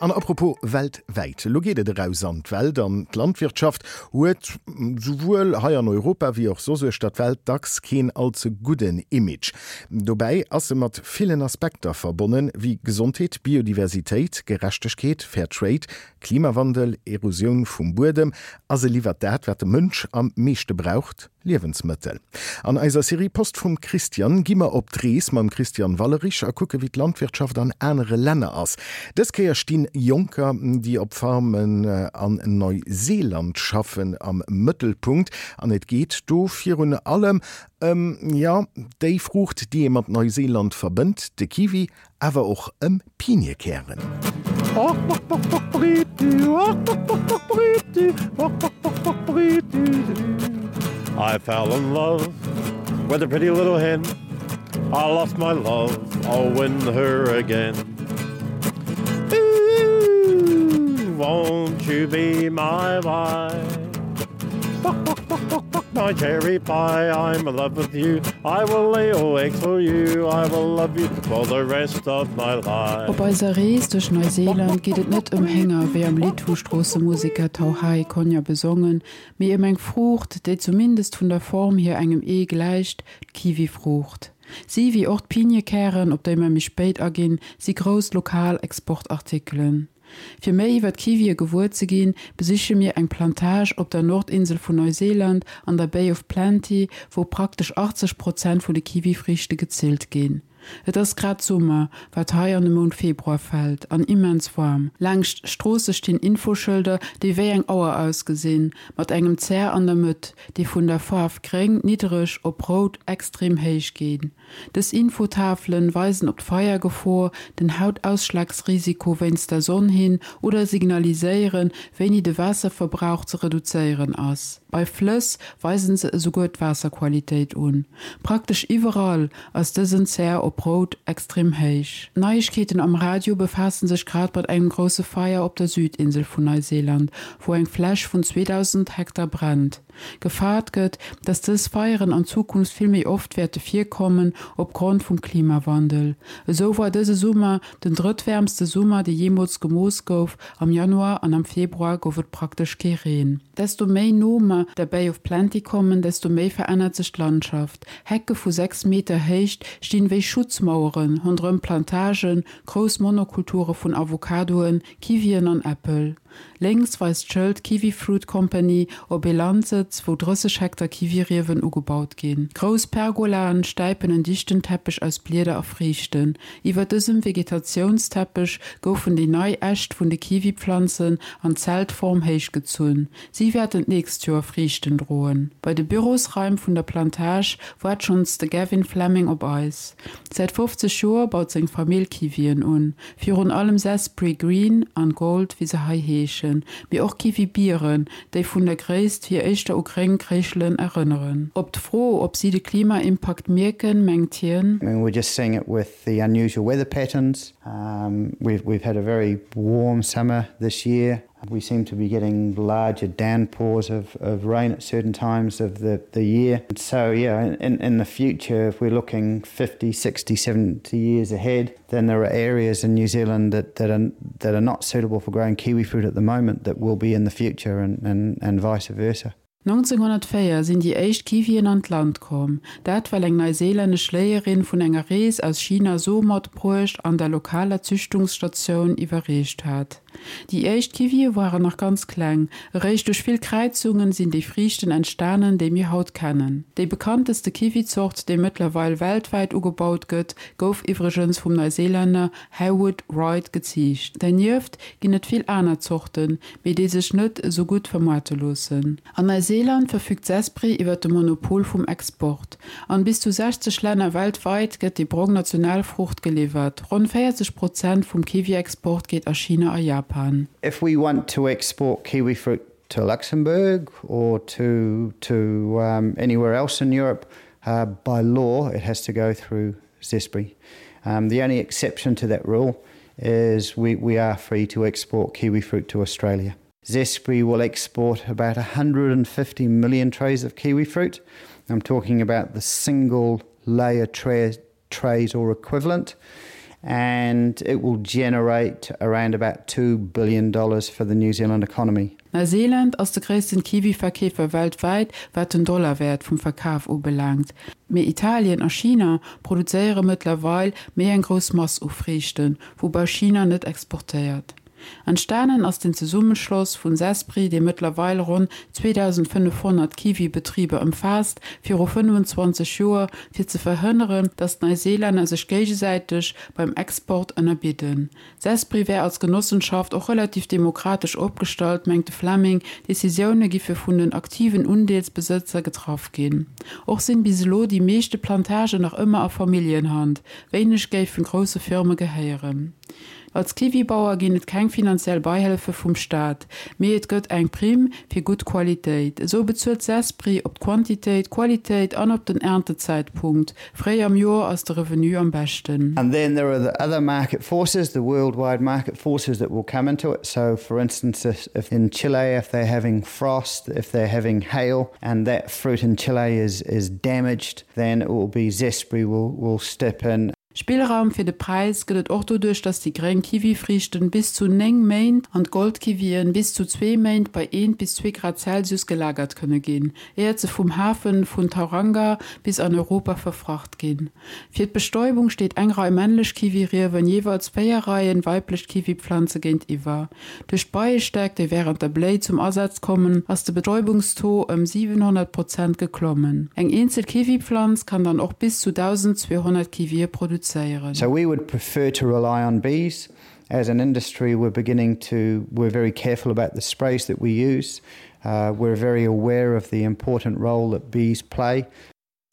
An apropos weltwäit, elo geet et eraus an d'Welt an d'Landwirtschaft huet souwuel hei an Europa wéi och soss uechter d'Welt dacks keen all ze gudden Image. Dobäi ass se mat villen Aspekter verbonnen, wéi Gesondheet, Biodiversitéit, Gerechtegkeet, Fair Trade, Klimawandel, Erosioun vum Buedem a se liwwert dat, wat de Mënsch am meeschte braucht, Liewensmëttel. An eiser Serie Post vum Christian gi mer op d'Rees mam Christian Wallerich a kucke wéi d'Landwirtschaft an anere Länner ass. Dës Kéier stinn Jonker, déi op Farmen an Neuseeland schaffen, am Mëttelpunkt an et geet do virun allem ëm, jo, déi Fruucht, déi ee mat Neuseeland verbënnt, de Kiwi, awer och ëm Piniekären. I fell in love with a pretty little hen I lost my love, I'll win her again Ooh, won't you be my wife? My cherry pie, I'm in love with you I will lay all eggs for you I will love you for the rest of my life. Op eiser Rees duerch Neuseeland geet et net ëm Hénger, wéi am Lidd vu Stroossemuseker Tauhai Konya besongen, mee ëm eng Fruucht, déi zumindest vun der Form hier engem Ee gläicht, d'Kiwifruucht. Si, wéi och d'Piniekären, op déi mer méi spéit aginn, si grouss lokal Exportartikelen. Fir méi iwwer d'Kiwie gewuer ze ginn, besiche mir eng Plantage op der Nordinsel vun Neuseeland an der Bay of Plenty, wou praktesch 80 Prozent vun de Kiwifriichte gezillt ginn. Et ass grad Summer, wat hei an de Mount Februar fält, an immens waarm. Laangscht Stroosse stinn Infoschëlder, déi wéi eng Auer ausgesinn, mat engem Zär an der Mëtt, déi vun der Faarf gréng, niddereg, op rout, extrem héich, ginn. Dës Infotafelen weisen op d'Feiergefor, den Hautausschlagsrisiko wéinst der Sonn hin oder signaliséieren, wéini de Waasserverbrauch ze reduzéieren ass. Bei Flëss weisen se esouguer d'Waasserqualitéit un. Praktesch iwwerall ass dësen Zär op rout extrem héich. D'Neiegkeeten am Radio befaassen sech grad mat engem grousse Feier op der Südinsel vun Neuseeland, wou eng Fläch vun 2.000 Hektar brennt. Gefaart gëtt, dass dës Feieren an Zukunft vill méi oft wäerte virkommen, opgrond vum Klimawandel. Esou war dëse Summer den drëttwäermste Summer, dee jeemools gemooss gouf. Am Januar an am Februar gouf et praktesch kee Reen. Desto méi no mer der Bay of Plenty kommen, desto méi verännert sech d'Landschaft. Hecke vu 6 Meter Héicht stinn wéi Schutzmauere ronderëm Plantagen, grouss Monokulture vun Avocadoen, Kiwien an Äppel. Lénks weist d'Schëld Kiwi Fruit Company op ee Landsëtz, wou 30 Hektar Kiwiriewen ugebaut ginn. Grouss Pergolaen stäipen en dichten Teppech aus Blieder a Friichten. Iwwer dësem Vegetatiounsteppech goufen déi nei Äscht vun de Kiwipflanzen an Zeltform héichgezunn. Si wäerten d'nächst Joer Friichten droen. Bei de Bürosraim vun der Plantage waart schonns de Gavin Fleming op eis. Säit 50 Joer baut seng Famill Kiwien un. Virun allem Zespri Green an Gold, wéi se hei heeschen, mee och Kiwi-Bieren, déi vun der Gréisst hier éischter u gréng Kréischelen erënneren. Op d'Fro, ob si de Klimaimpakt mierken, mengt hien. I mean we're just seeing it with the unusual weather patterns. We've had a very warm summer this year. We seem to be getting larger downpours of, of rain at certain times of the, the year. So yeah, in, in the future, if we're looking 50, 60, 70 years ahead, then there are areas in New Zealand that, that, are, that are not suitable for growing kiwi fruit at the moment that will be in the future and, and, and vice versa. 1904 sinn déi éischt Kiwien an d'Land komm, dat well eng neiseelännesch Léierin vun enger Rees aus China Som matbruecht an der lokaler Züchtungsstatioun iwwerreecht hat. Déi éischt Kiwie waren nach ganz kleng, eréischt duerch vill Kräizungen sinn déi Friichten entstanen, déi mir haut kennen. Déi bekannteste Kiwizort, déi mëttlerweil weltwäit ugebaut gëtt, gouf iwwregens vum Neuseelänner Haywood Wright geziicht. Dernieft ginn et vill aner Zorten, mee déi sech net esou gutt vermoarte loossen. An Neuseeland verfügt Zespri iwwer de Monopol vum Export. An bis zu 60 Länner weltweit gëtt déi brong Nationalfruucht geliwwert. Ronn 40 Prozent vum Kiwi-Export geet a China a Japan. If we want to export kiwi fruit to Luxembourg or to to anywhere else in Europe, by law it has to go through Zespri. Um, the only exception to that rule is we, we are free to export kiwi fruit to Australia. Zespri will export about 150 million trays of kiwi fruit. I'm talking about the single layer tray, trays or equivalent. And it will generate around about 2 billion dollars for the New Zealand economy. Neuseeland ass de gréissten Kiwi-Verkeefer weltwäit, wat den Dollarwäert vum Verkaf ubelaangt. Mee Italien a China produzéiere mëttlerweil méi eng grouss Mass u Friichten, woubäi China net exportéiert. Entstanen ass den Zesummeschloss vun Zespri, dee mëttlerweil ronn 2.500 Kiwi-Betriber ëmfaasst, viru 25 Joer, fir ze verhënneren, datt d'Neiseelänner sech géigesäiteg beim Export ënnerbidden. Zespri wär als Genossenschaft och relativ demokratesch opgestallt, mengt de Fleming, Decisioune giffe vun den aktiven Undeelsbesëtzer getraff ginn. Och sinn bis elo déi meeschte Plantagen nach ëmmer a Familljenhand, wéineg géifen grousse Firme gehéieren. Als Kiwibauer ginn et keng finanziell Beihëllefe vum Staat, mee et gëtt eng Primm fir gutt Qualitéit. Esou bezuelt Zespri op d'Quantitéit, d'Qualitéit an op den Erntezäitpunkt. Fréi am Joer ass de Revenu am beschten. And then there are the other market forces, the worldwide market forces that will come into it. So for instance, if, if in Chile, if they're having frost, if they're having hail, and that fruit in Chile is, is damaged, then it will be Zespri will, will step in Spillraum fir de Präis gëtt et och doduerch, dass déi gréng Kiwifriichten bis zu 9 Méint an d'Goldkiwien bis zu zwee Méint bei eent bis zwee Grad Celsius gelagert kënne ginn, éiert se vum Hafen vun Tauranga bis an Europa verfracht ginn. Fir d'Bestäubung steet eng Rei männlech Kiwiriewen jeeweils 4 Reien weiblech Kiwipflanze géintiwwer. Duerch d'Beiestäck, déi wärend der Bléi zum Asaz kommen, ass de Betäubungstaux ëm 700 Prozent geklommen. Eng eenzel Kiwipflanz kann dann och bis zu 1.200 Kiwie produzéieren. So we would prefer to rely on bees. As an industry we're beginning to we're very careful about the sprays that we use. Uh, we're very aware of the important role that bees play.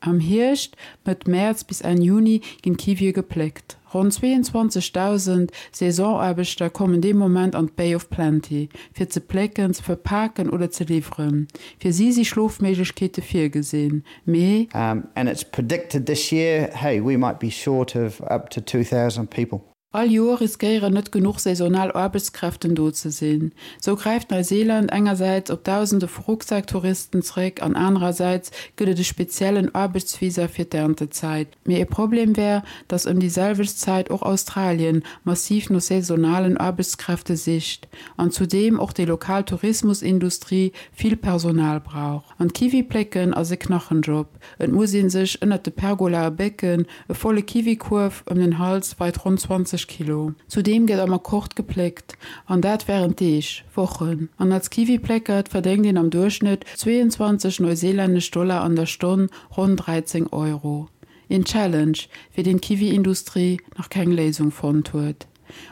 Am Hierscht, Mëtt Mäerz bis Enn Juni, ginn d'Kiwie gepléckt. Ronn 22.000 Saisonaarbechter kommen dee Moment an d'Bay of Plenty, fir ze plécken, ze verpaken oder ze liwweren. Fir si si Schlofméiglechkeete virgesinn, mee. And it's predicted this year, hey, we might be short of up to 2,000 people. All Joer riskéieren net genuch saisonal Aarbechtskräften do ze sinn. Sou gräift Neuseeland engersäits op Dausende vu Rucksacktouristen zeréck an anerersäits gëtt et e speziellen Aarbechtsvisa fir d'Erntezäit. Mee e Problem wär, datt ëm déi selwecht Zäit och Australien massiv no saisonalen Aarbechtskräfte sicht an zudeem och déi lokal Tourismusindustrie vill Personal brauch. An d'Kiwi plécken ass e Knachenjob. Et muss ee sech ënnert de Pergolae bécken, e volle Kiwikuerf ëm den Hals weit ronn 20 Kilo. Zudeem gëtt am Akkord gepléckt, an dat wärend Deeg, Wochen. An als Kiwipléckert verdéngt een am Duerchschnëtt 22 neuseelännesch Dollar an der Stonn, ronn 13 Euro. Een Challenge, fir deen d'Kiwi-Industrie nach keng Léisung fonnt huet.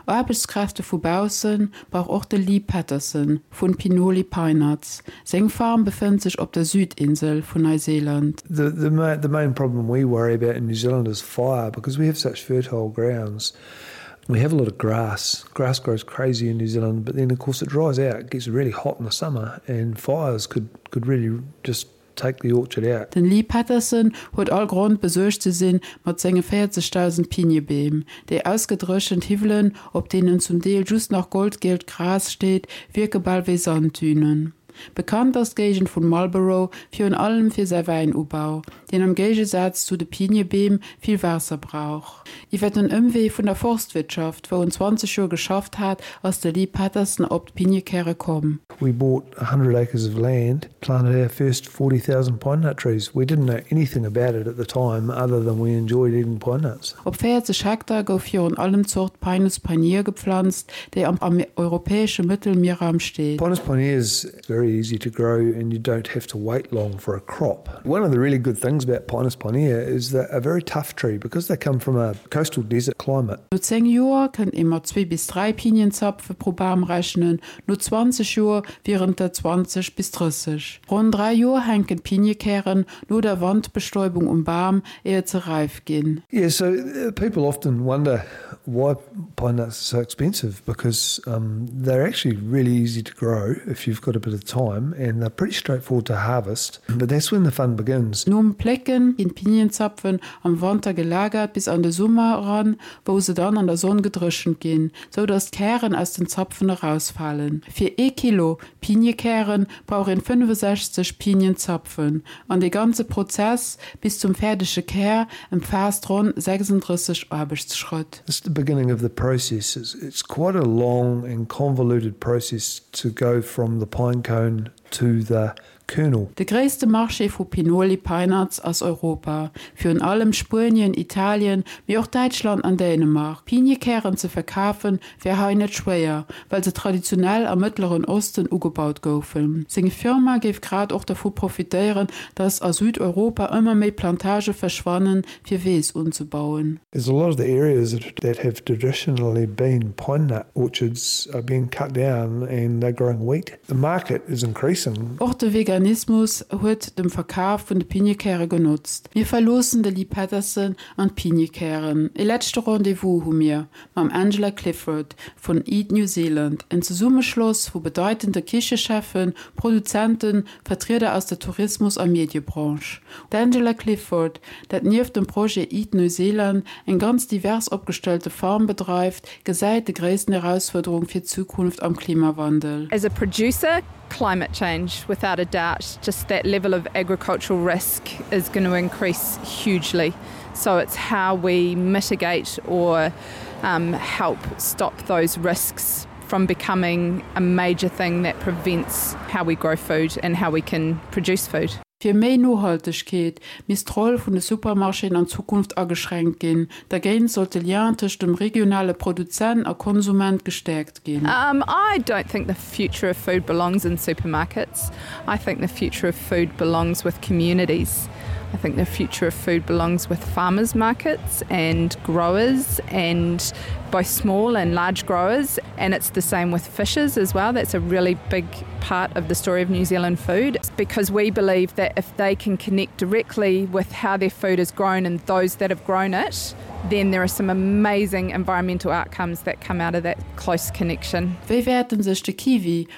Aarbechtskräfte vu bausse brauch och de Lee Patterson vun Pinoli Pinenuts. Seng Farm befënnt sech op der Südinsel vun Neuseeland. The, the, the main problem we worry about in New Zealand is fire because we have such fertile grounds. We have a lot of grass. Grass grows crazy in New Zealand, but then of course it dries out. It gets really hot in the summer and fires could, could really just take the orchard out. Den Lee Patterson huet all Grond besuergt ze sinn mat senge 40.000 Piniebeem. Déi ausgedréchent Hiwwelen, op deenen zum Deel just nach goldgielt Gras steet, wierke bal wéi Sanddünen. Bekannt ass d'Géigend vun Marlborough virun allem fir säi Wäinubau, deen am Géigesaz zu de Piniebeem vill Waasser brauch. Iwwer den Ëmwee vun der Forstwirtschaft, wou en 20 Joer geschafft hat, ass de Lee Patterson op d'Piniekäre komm. We bought 100 acres of land, planted our first 40,000 pine nut trees. We didn't know anything about it at the time other than we enjoyed eating pine nuts. Op 40 Hektar gouf virun allem d'Zort Pinus pinier geplanzt, déi am am europäesche Mëttelmierraum steet. Pinus pinier is very easy to grow and you don't have to wait long for a crop. One of the really good things about Pinus pinier is they're a very tough tree because they come from a coastal desert climate. No 10 Joer kënnt ee mat zwee bis dräi Pinienzapfe pro Bam rechnen, no 20 Joer wieren et der 20 bis 30. Ronn dräi Joer hänken d'Piniekären no der Wandbestäubung um Bam, éiert se räif ginn. Yeah, so people often wonder why pine nuts are so expensive because um, they're actually really easy to grow if you've got a bit of time and they're pretty straightforward to harvest. But that's when the fun begins. Nom Plécken ginn d'Pinienzapfen am Wanter gelagert bis an de Summer eran, wou se dann an der Sonn gedréchent ginn, sou dass d'Kären aus den Zapfen erausfalen. Fir ee Kilo Piniekären brauch een 65 Pinienzapfen an dee ganze Prozess bis zum fäerdege Kär ëmfaasst ronn 36 Aarbechtsschrëtt. The. beginning of the process. It's, it's quite a long and convoluted process to go from the pine cone to the kernel. De gréisste Marché vu Pinoli Pine-Nuts ass Europa, virun allem Spuenien, Italien, mee och Däitschland an Dänemark. Piniekären ze verkafen wär hei net schwéier, well se traditionell am Mëttleren Osten ugebaut goufen. Seng Firma géif grad och dervu profitéieren, datt a Südeuropa ëmmer méi Plantage verschwannen, fir Weess unzebauen. There's a lot of the areas that have traditionally been pine nut orchards are being cut down and they're growing wheat. The market is increasing. Och de Veganismus huet dem Verkaf vun de Piniekäre genotzt. Mir verloossen de Lee Patterson an d'Piniekären. E leschte Rendez-vous hu mir mam Angela Clifford vun Eat New Zealand, en Zesummeschloss vu bedeitende Kichecheffen, Produzenten, Vertrieder aus der Tourismus a Mediebranche. D'Angela Clifford, dat nieft dem Projet Eat New Zealand eng ganz divers opgestellte Farm bedreift, gesäit de gréissten Erausfuerderung fir d'Zukunft am Klimawandel. As a producer, climate change without a doubt, just that level of agricultural risk is going to increase hugely. So it's how we mitigate or um, help stop those risks from becoming a major thing that prevents how we grow food and how we can produce food. Fir méi Nohaltegkeet misst d'Roll vun de Supermarchéen an Zukunft ageschränkt ginn. Dergéint sollt de Lien tëscht dem regionale Produzent a Konsument gestäerkt ginn. Um, I don't think the future of food belongs in supermarkets. I think the future of food belongs with communities. I think the future of food belongs with farmers markets and growers and both small and large growers and it's the same with fishes as well. That's a really big part of the story of New Zealand food because we believe that if they can connect directly with how their food is grown and those that have grown it, then there are some amazing environmental outcomes that come out of that close connection. Wéi wäerten sech de Kiwi?